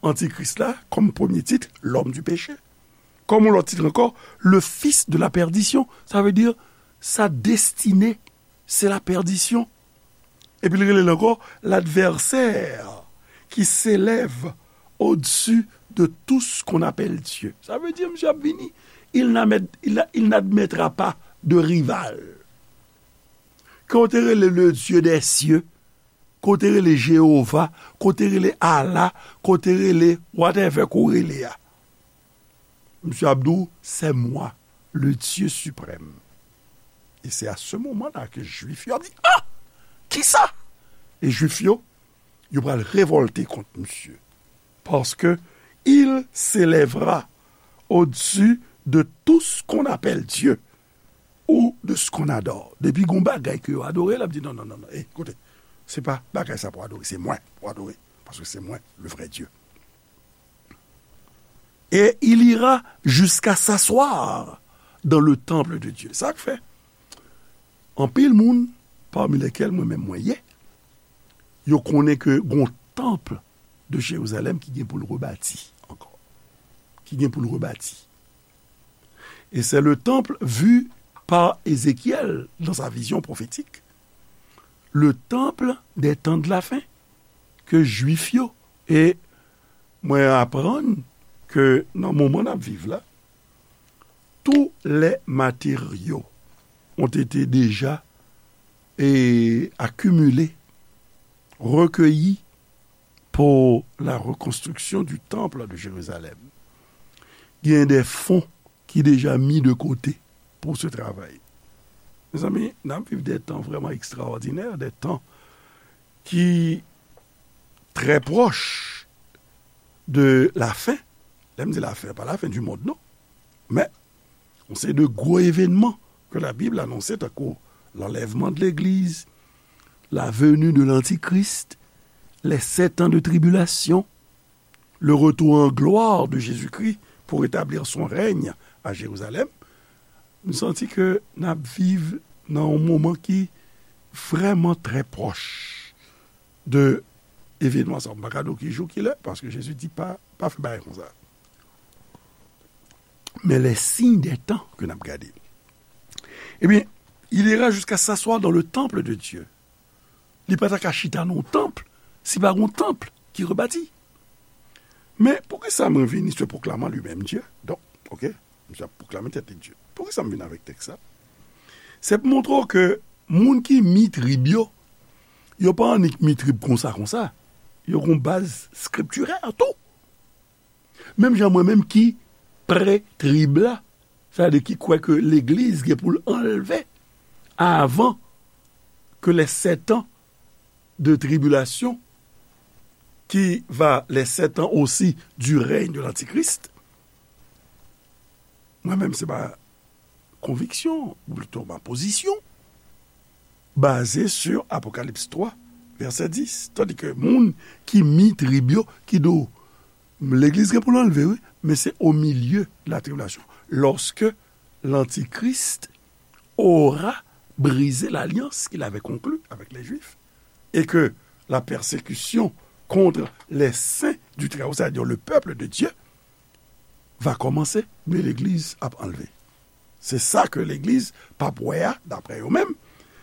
Antikris la, kòm premye tit, l'homme du péché. Kòm yon lòt tit ankò, le fils de la perdition. Sa vle di, sa destine, se la pèdisyon. Epi l rele l ankò, l'adversaire qui s'élève au-dessus de tout ce qu'on appelle Dieu. Sa vle di, misye ap vini. Il n'admet-, il, il n'admettra pas de rival. Ke w te rele le Dieu des cieux, ke w te rele Jewova, ke w te rele Allah, ke w te rele whatever ke w rele a. Misye ap di w, c'est moi, le Dieu suprême. Et c'est à ce moment-là que Juif yo ap di, ah! Kisa? E Juif yo, yo pral revòlte kont misye. Parce que il s'élèvera au-dessus de tout ce qu'on appelle Dieu ou de ce qu'on adore. Depi gon bagay ke yo adore, l ap di, non, non, non, non. Eh, koute, se pa bagay sa pou adore, se mwen pou adore. Paske se mwen, le vrai Dieu. Et il ira jusqu'à s'asseoir dans le temple de Dieu. Sa k fè anpil moun, parmi lesquels mwen menm mwen ye, yo konnen ke gon tanp de Jérusalem ki gen pou l rebati ankò. Ki gen pou l rebati. Et c'est le temple vu par Ézéchiel dans sa vision prophétique, le temple des temps de la fin, ke Jwif yo, e mwen aprann ke nan moman n ap viv la, tous les matériaux ont été déjà et accumulés, recueillis pour la reconstruction du temple de Jérusalem. Gen de fonds ki deja mis de côté pour ce travail. Mezanmi, n ap viv de tan vrèman ekstraòdinè, de tan ki trè pwòch de la fen. Lè m di la fen, pa la fen di mond, non. Men, yon seri de gwo evènman ke Labib anonse, tankou l'enlèvement de l'Église, la venue de l'Antichrist, les sept ans de tribulation, le retour en gloire de Jésus-Christ pour établir son règne à Jérusalem, m santi ke n ap viv nan yon moman ki vrèman trè pwòch de evènman sa. M pa ka di w ki jou, ki lè, paske Jezi di pa, pa fè bagay konsa. Men les signes des temps ke n ap gade. Ebyen, il ira jusqu'à s'asseoir dans le temple de Dieu. Li pa ta ka chita nan yon tanp, si pa gon tanp ki rebati. Men, poukisa mwen vini se pwoklame li menm Dye? Donk, oke, misye ap pwoklame tèt li Dye. Poukisa m vin avèk tèks sa? Se pou montre w ke moun ki mi trib yo, yo pa annik mi trib konsa, konsa. Yo gon baz skriptirè tou. Menm jan mwen menm ki pre trib la, sa vle di ki kwè ke legliz gen pou l anlve avan ke les sept ans de tribulation, qui va les sept ans aussi du règne de l'Antichrist. Mwen menm, se pa konviksyon, ou plito ma pozisyon, baze sur Apokalips twa, vèsè dis. Tandi ke moun ki mi trib yo, ki di w, legliz gen pou l anlve, wi, men se au milieu de la tribulation. Lorsque l'Antichrist aura brisé l'alliance qu'il avait conclue avec les Juifs, et que la persécution contre les saints du Très-Haut, c'est-à-dire le peuple de Dieu, va commencer, men legliz ap anlve. Se sa ke legliz p ap wè a, daprè yo menm,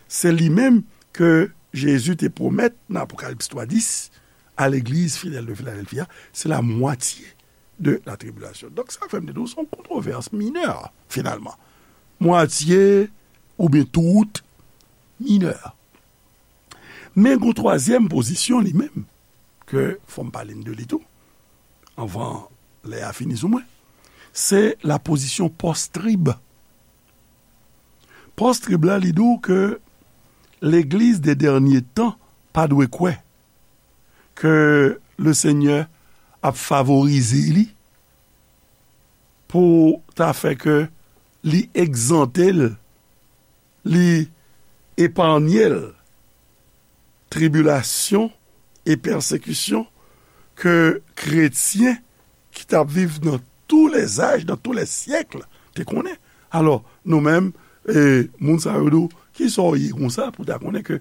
se li menm ke Jezi te pwomèt nan Apokalips twa dis a legliz fidèl de Filadèlfi a, se la mwatye de la tribulation. Donk, sa fè m te di w, se yon kontwovès minè, finalman. Mwatye oubyen tout minè. Men gon twazyèm pozisyon li menm, ke fò m pale n de li tou, anvan lè a fini sou mwen, se la pozisyon pòs-trib. Pòs-trib la, li di w ke legliz de dènye tan pa dwe kwè ke le Senyè ap favorize li pou ta fè ke li egzante l, li epanye l tribilasyon e pèsekisyon ke kretyen ki t ap viv nan tou lè zaj, nan tou lè syèk, te konnen. Alò, nou menm, e, moun sa yo di w, kisa w ye konsa pou w ta konnen ke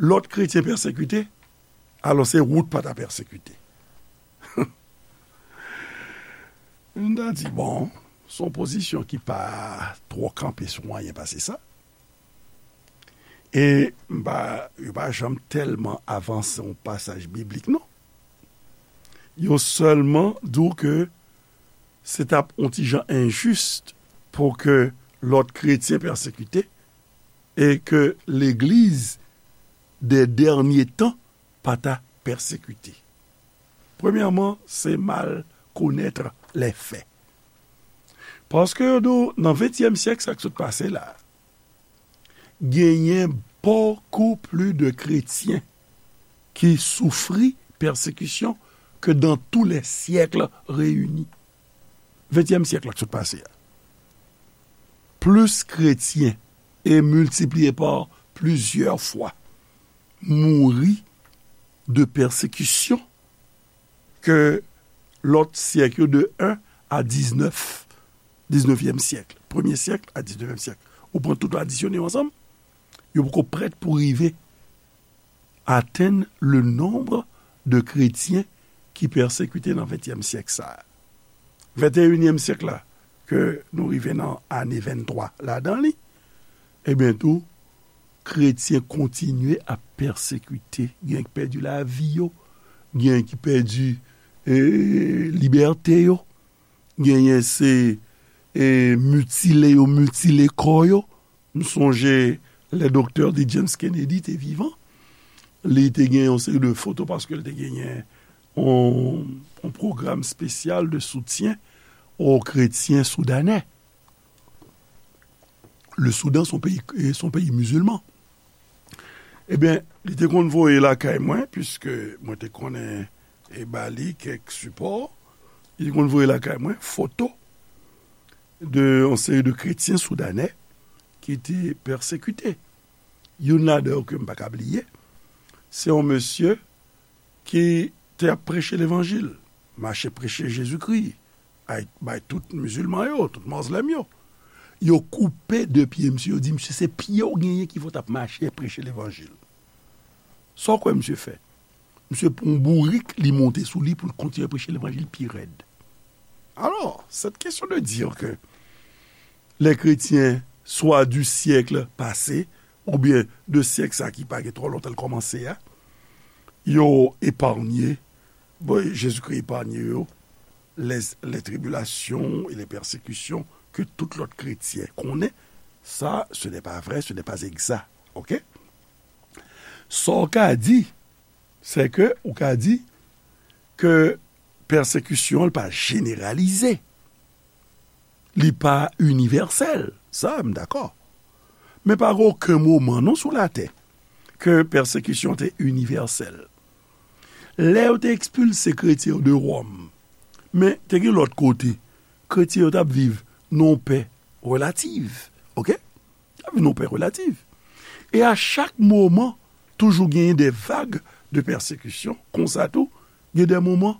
lòt kretyen pèsekite, alò se ou t pa ta pèsekite? M ta di, bon, se yon pozisyon ki pa twò kanpe sou anyen pase sa. E m pa, yo pa janm tèlman avanse yon pasaj biblik, non. Yo sèlman di w ke se t ap yon ti jan enjis pou ke lòt kretyen pèsekite e ke legliz de dènye tan pa ta pèsekite. Premyèman, se mal konèt lè fè. Paske yo di w, nan ventyèm syèk, sa k sot pase la, genyen bokou pli de kretyen ki soufri pèsekisyon ke dans tous les siècles réunis. Ventyèm syèk la k sot pase a. Plis kretyen, e miltipliye pa plizyè fwa, mouri de pèsekisyon ke lòt syèk yo, de en a diznèf, diznevyèm syèk, premye syèk a diznevyèm syèk. Ou pran tout, adisyone yo ansanm, yo poko prèt pou rive atenn le nonb de kretyen ki pèsekite nan ventyèm syèk sa a. Venteyinyèm syèk la, ke nou rive nan ane venntwa ladan li, ebyen tou, kretyen kontinye ap pèsekite. Gen ki pèdi lavi yo, gen ki pèdi, e, libète yo, genyen se, e, mitile yo mitile kò yo. M sonje lè doktè D. James Kennedy te vivan, li te gen yon seri de foto paske l te genyen yon, yon pwogram espesyal de soutyen o kretyen soudanè. Le Soudan, se yon peyi, se yon peyi mizilman. Ebyen, li te konn voye lakay mwen, piske mwen te konnen e ba li kèk sipò, li te konn voye lakay mwen foto de yon seri de kretyen soudanè ki te pèsekite. Youn ladan yo ke m pa ka bliye, se yon mesye ki te ap preche levanjil, mache preche Jezikri, ay, bay tout mizilman yo, tout mozlèm yo. Yo koupe de pye misye, yo di, "Misye, se pye w genyen ki fè w t ap mache preche levanjil." Sa w kwè misye fè? Misye pran yon bourik, li monte sou li pou l kontinye preche levanjil pi rèd. Alors, cette question de dire que les chrétiens, soit du siècle passé, oubyen de syèk sa ki pa gen twò lontan l kòmanse a, yo eparnye, bon, Jezikri eparnye yo, les, les tribulations et les persécutions que tout lòt kretyen konnen, sa, ce n'est pas vrai, ce n'est pas exact. Ok? Sa w ka di, se ke ou ka di ke pèsekisyon an pa jeneralize. Li pa inivèsèl. Sa, m dakò. Men pa gen okenn moman, non, sou latè, ke pèsekisyon te inivèsèl. Lè yo te ekspilse kretyen yo de Wòm, men te gen lòt kote, kretyen yo t ap viv nan yon pè relativ. Ok? T ap vin yon pè relativ. E a chak moman, toujou genyen de vag de pèsekisyon. Konsa tou, gen de moman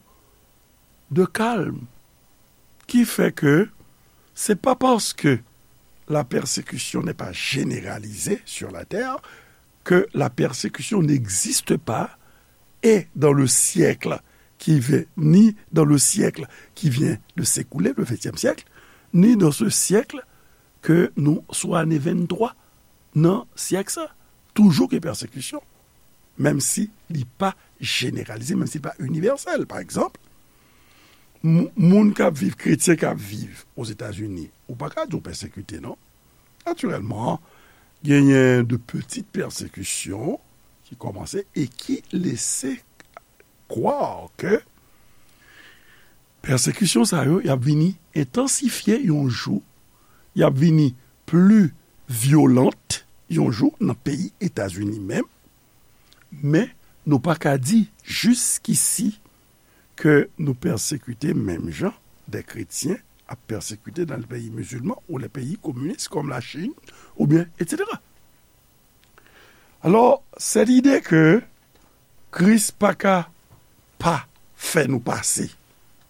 de kalm. Ki fè ke se pa paske la persécution n'est pas généralisée sur la terre que la persécution n'existe pas et dans le siècle qui vient, ni dans le siècle qui vient de s'écouler, le vingtième siècle, ni dans ce siècle ke nou sou ane venntwa nan syèk sa, toujou gen pèsekisyon, menm si li pa jeneralize, menm si li pa inivèsèl. Pa egzanp, moun k ap viv, kretyen k ap viv Ozetazini, ou pa ka di w pèsekite, non. Natirèlman, genyen de pitit pèsekisyon ki kòmanse e ki lese kwè ke pèsekisyon sa yo, y ap vini entansifye yon jou, y ap vini pli vyolant yon jou nan peyi Etazini menm, men nou pa ka di jiskisi ke nou pèsekite menm jan de kretyen ap pèsekite nan peyi mizilman ou le peyi kominis kòm Lachin, oubyen etsetera. Alò, sèt ide ke Kris pa ka pa fè nou pase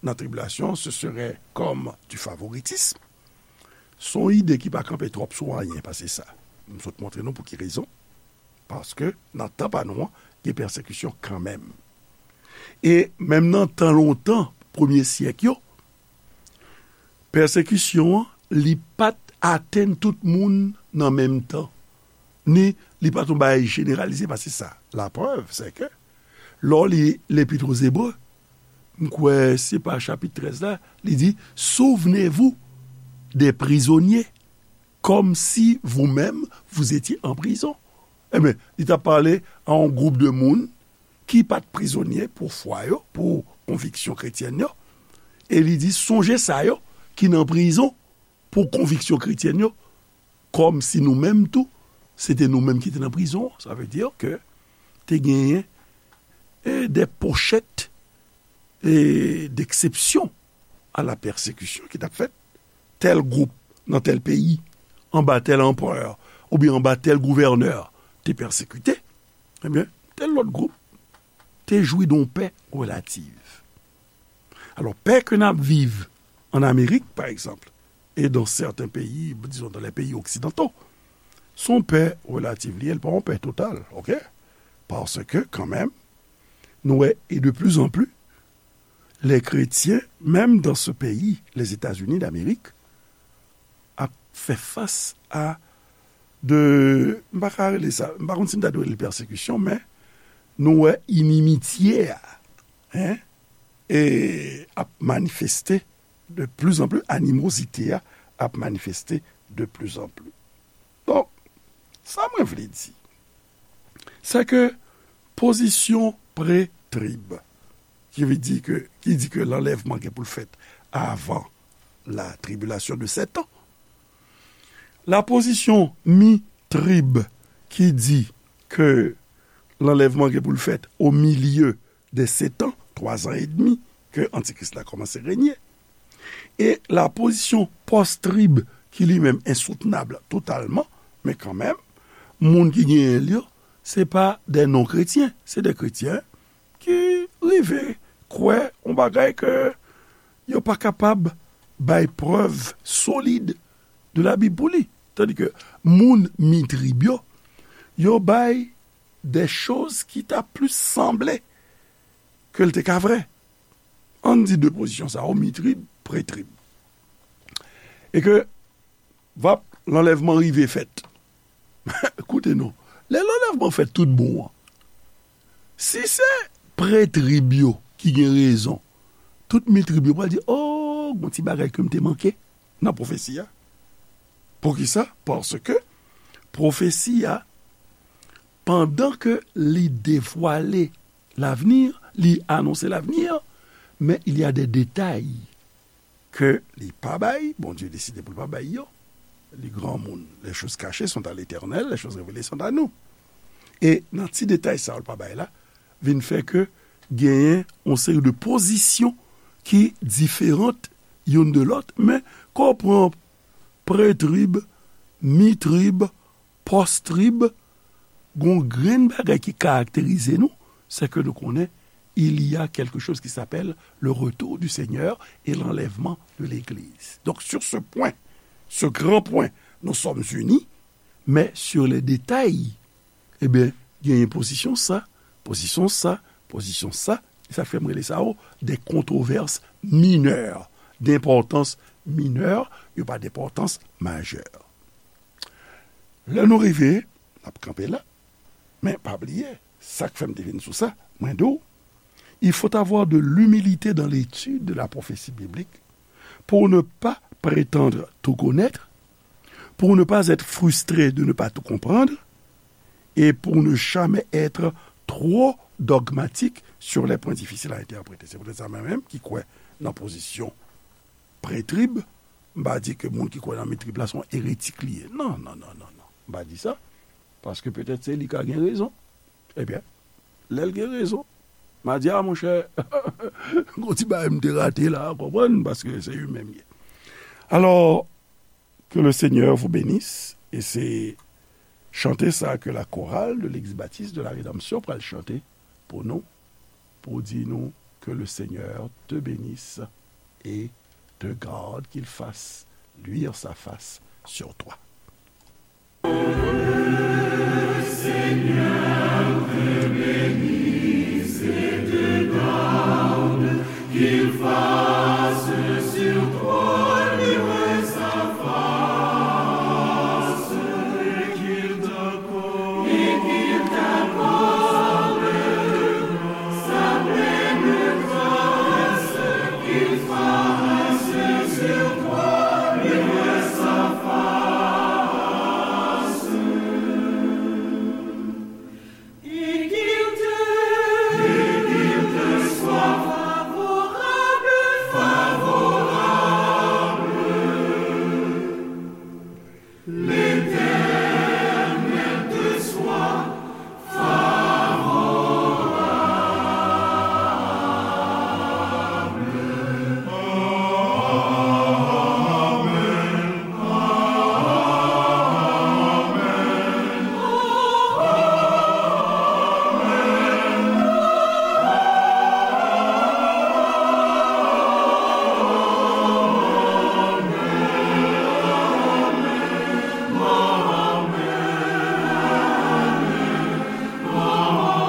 nan tribilasyon, ce serait comme du favoritisme. Se yon ide ki pa kanpe twòp sou anyen pase sa. M sot montre nou pou ki rezon. Paske nan tan pa nou an, gen pèsekisyon kanmenm. E menm nan tan lontan, premye syèk yo, pèsekisyon an, li pa t atenn tout moun nan menm tan. Ni li pa t yon bagay jeneralize pase sa. Laprèv, se ke, lè w li Lepit o Zebre, m kwè se pa chapit trèz la, li di, Souvenez-vous des prisonniers, comme si vous-même vous étiez en prison. Ebyen, li t ap pale a yon gwoup de moun ki pa t prizonye pou fwa yo, pou konviksyon kretyèn yo. E li di, Sonje sa yo ki nan prizon pou konviksyon kretyèn yo, kòm si nou menm tou, se te nou menm ki te nan prizon. Sa vle di ke te genyen, e, de pochèt, e, d'exception à la persécution ki t ap fèt. Tèl gwoup nan tèl peyi, anba tèl anperè, oubyen anba tèl gouvènè, te pèsekite, ebyen, tèl lòt gwoup te jwi de yon pè relativ. Alò, pè ke n ap viv an Amerik, pa egzanp, e dans certains pays, disons dans les pays occidentaux, se yon pè relativ li ye, li pa yon pè total, ok? Paske, kanmenm, nou wè, e de plus en plus, les chrétiens, même dans ce pays, les États-Unis d'Amérique, ap fè fas a de, m pa ka rele sa, m pa konn si m ta dwe rele pèsekisyon, men nou wè inimitye a, en, e ap manifeste de plus en plus, animozite a ap manifeste de plus en plus. Donk, sa mwen vle di, se ke pozisyon pre-trib, ki vle di ke, ki di ke lanlèvman gen pou l fèt avan la tribulation de sept ans, la pozisyon mi-trib, ki di ke lanlèvman gen pou l fèt au milieu des sept ans, twa zan edmi, ke Antikris la kòmanse renye. E la pozisyon pòs-trib, ki li menm ensoutnab totalman, men kanmenm, moun ki genyen l yo, se pa de non-kretyen, se de kretyen ki rive kwè yon bagay ke yo pa kapab bay prèv solid de Labib pou li. Tandis ke moun mi-trib yo, yo bay de choz ki ta plis sanble ke l te ka vrè. Ann di de pozisyon sa yo, mi-trib, pre-trib. E ke, vap, lanlèvman rive fèt. Koute non, lè lanlèvman fèt tout bon an, si se pre-trib yo ki gen rezon, tout mi-trib yo pral di, "O, gon ti bagay ke m te manke nan pwofesi a." Poukisa? Paske pwofesi a, pandan ke li devwale l'avenir, li anonse l'avenir, men il y a des détails ke li pa bay, Bondye deside pou l pa bay yo. Li granmoun, les choses cachées sont à l'Éternel, les choses révélées sont à nous. E nan ti detay sa yo l pa bay la, vin fè ke genyen yon seri de pozisyon ki diferan youn de lòt, men kan w pran pre-trib, mi-trib, pòs-trib, gon grenn bagay ki karakterize nou, se ke nou konnen il y a quelque chose qui s'appelle le retour du Seigneur et l'enlèvement de l'Église. Donc, sur ce point, ce grand point, nous sommes unis, mais sur les détails, ebyen, genyen pozisyon sa, pozisyon sa, pozisyon sa, e sa fè m rele sa yo des controverses mineures, d'importance mineure, yo pa d'importance majeure. Lè nou rive, n ap kanpe la. Men pa bliye, sa k fè m te vin sou sa, mwen di w, il faut avoir de l'humilité dans l'étude de la prophétie biblique pour ne pas prétendre tout connaître, pour ne pas être frustré de ne pas tout comprendre, et pour ne jamais être trop dogmatique sur les points difficiles à interpréter. Se poutèt sa mwen menm ki kwè nan pozisyon pre-trib, m pa di ke moun ki kwè nan mi-trib la se yon eretik li ye. Non, non, non, non, non. M pa di sa. Paske petèt se li ka gen rezon. Ebyen, lè l gen rezon, m a di, "A, monchè, gon ti bagay m te rate la, w konprann, paske se li menm ye." Alò, que le Seigneur vous bénisse, e se chante sa ke la chorale de l'Église baptiste de la Rédemption pral chante pou nou, pou di nou, "Que le Seigneur te bénisse et te garde, qu'il fasse luire sa face sur toi."